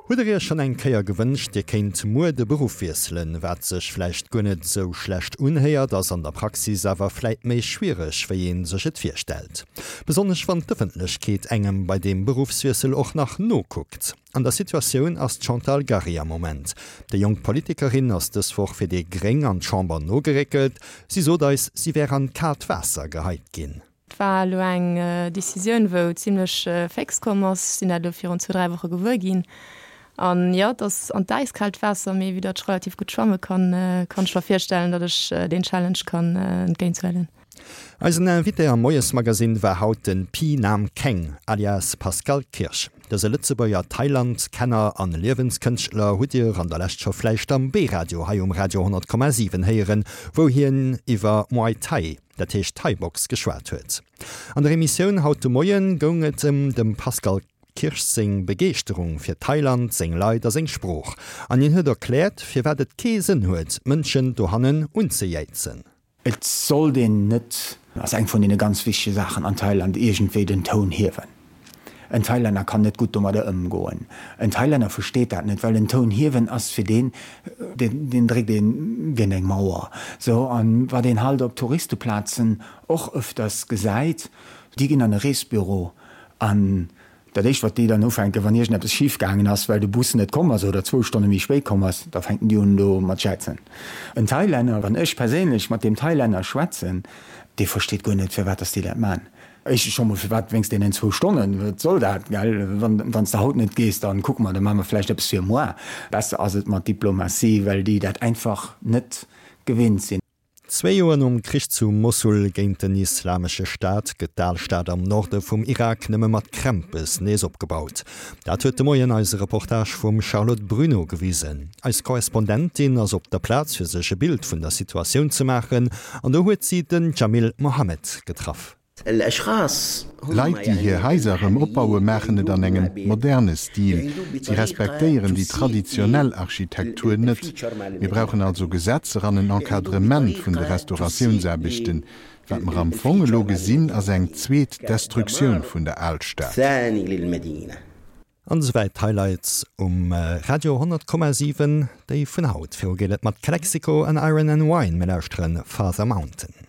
Hutt der iech schonn eng Kéier gewënscht, dir kéint muer de Beruff wiesselen? Wat sech vläicht guer net esou schlecht unhéiert, ass an der Praxis awer vläit méi schwiereg, wéi ee sech et virstellt. Besonnesch wann d'Ëffentlechkeet engem bei deem Beruffswiessel och nach nokuckt. An der Situatioun ass d'Chantal Gary am Moment. Déi jonk Politikerin ass dës Woch fir déi Gréng an d'Chamber nogeréckelt. Si sot eis, si wär an d'kaalt Waasser geheit ginn. Et war elo eng Decisioun, wou zimlech féx komm ass. Ech sinn dat elo virun zwou, dräi Woche gewuer ginn. An jo, et ass an d'äiskaalt Waasser, mee vue datt ech relativ gutt schwamme kann, kann ech mer virstellen, datt ech deen Challenge kann entgéinthuelen. Eisen Invité am Moiesmagasinn war haut de Pi Nam Keng, alias Pascal Kirsch. Dëse Lëtzebuerger Thailand-Kenner an Liewenskënschtler hutt Dir an der Lescht scho vläicht am B-Radio hei um Radio 100,7 héieren, wou hien iwwer Muay Thai, dat heescht Thai-Box, geschwat huet. An der Emissioun haut de Moien goung et ëm dem Pascal Kirsch seng Begeeschterung fir Thailand, seng Leit a seng Sprooch. An hien huet erkläert, firwat et kee Sënn huet, d'Mënschen dohannen unzejäizen. Et sollt een net, ass eng vun deene ganz wichtege Saachen an Thailand, iergendwéi den Toun hiewen. En Thailänner kann net gutt domadder ëmgoen. En Thailänner versteet dat net, well en Toun hiewen ass fir deen, deen dréckt een géint eng Mauer. Sou, an wat een halt op Touristeplazen och ëfters gesäit, déi ginn an e Reesbüro an dat éischt wat déi dann ufänken, wann iergendeppes schif gaangen ass, well de Bus net komm ass oder zwou Stonne méi spéit komm ass, da fänken déi un do mat jäizen. En Thailänner, wann ech perséinlech mat deem Thailänner schwätzen, dee versteet guer net firwat dass déi dat man. Éischtens scho mol, firwat wéinst deenen zwou Stonnen? Wat soll dat, gell? Wann, wann s de haut net gees, dann kucke mer, da maache mer vläicht eppes fir moar. Besser ass et mat Diplomatie, well déi dat einfach net gewinnt sinn. Zwee Joer nom Krich zu Mossul géint den Islamesche Staat gëtt d'Alstad am Norde vum Irak nëmme mat Krämpes nees opgebaut. Dat huet de Moien eise Reportage vum Charlotte Bruneau gewisen. Eis Korrespondentin ass op der Plaz fir sech e Bild vun der Situatioun ze maachen an do huet si den Jamil Mohammed getraff. Leit, déi hir Haiser erëm opbaue maachen et an engem moderne Stil. Si respektéieren déi traditionell Architektur net. Mir brauchen also Gesetzer an en Encadrement vun de Restauratiounsaarbechten. Wat mer am Fong elo gesinn, ass eng zweet Destruktioun vun der Alstad. An esouwäit d'Highlights um Radio 100,7, déi vun haut. Viru geet et mat Calexico an Iron and Wine. Mir lauschteren Father Mountain.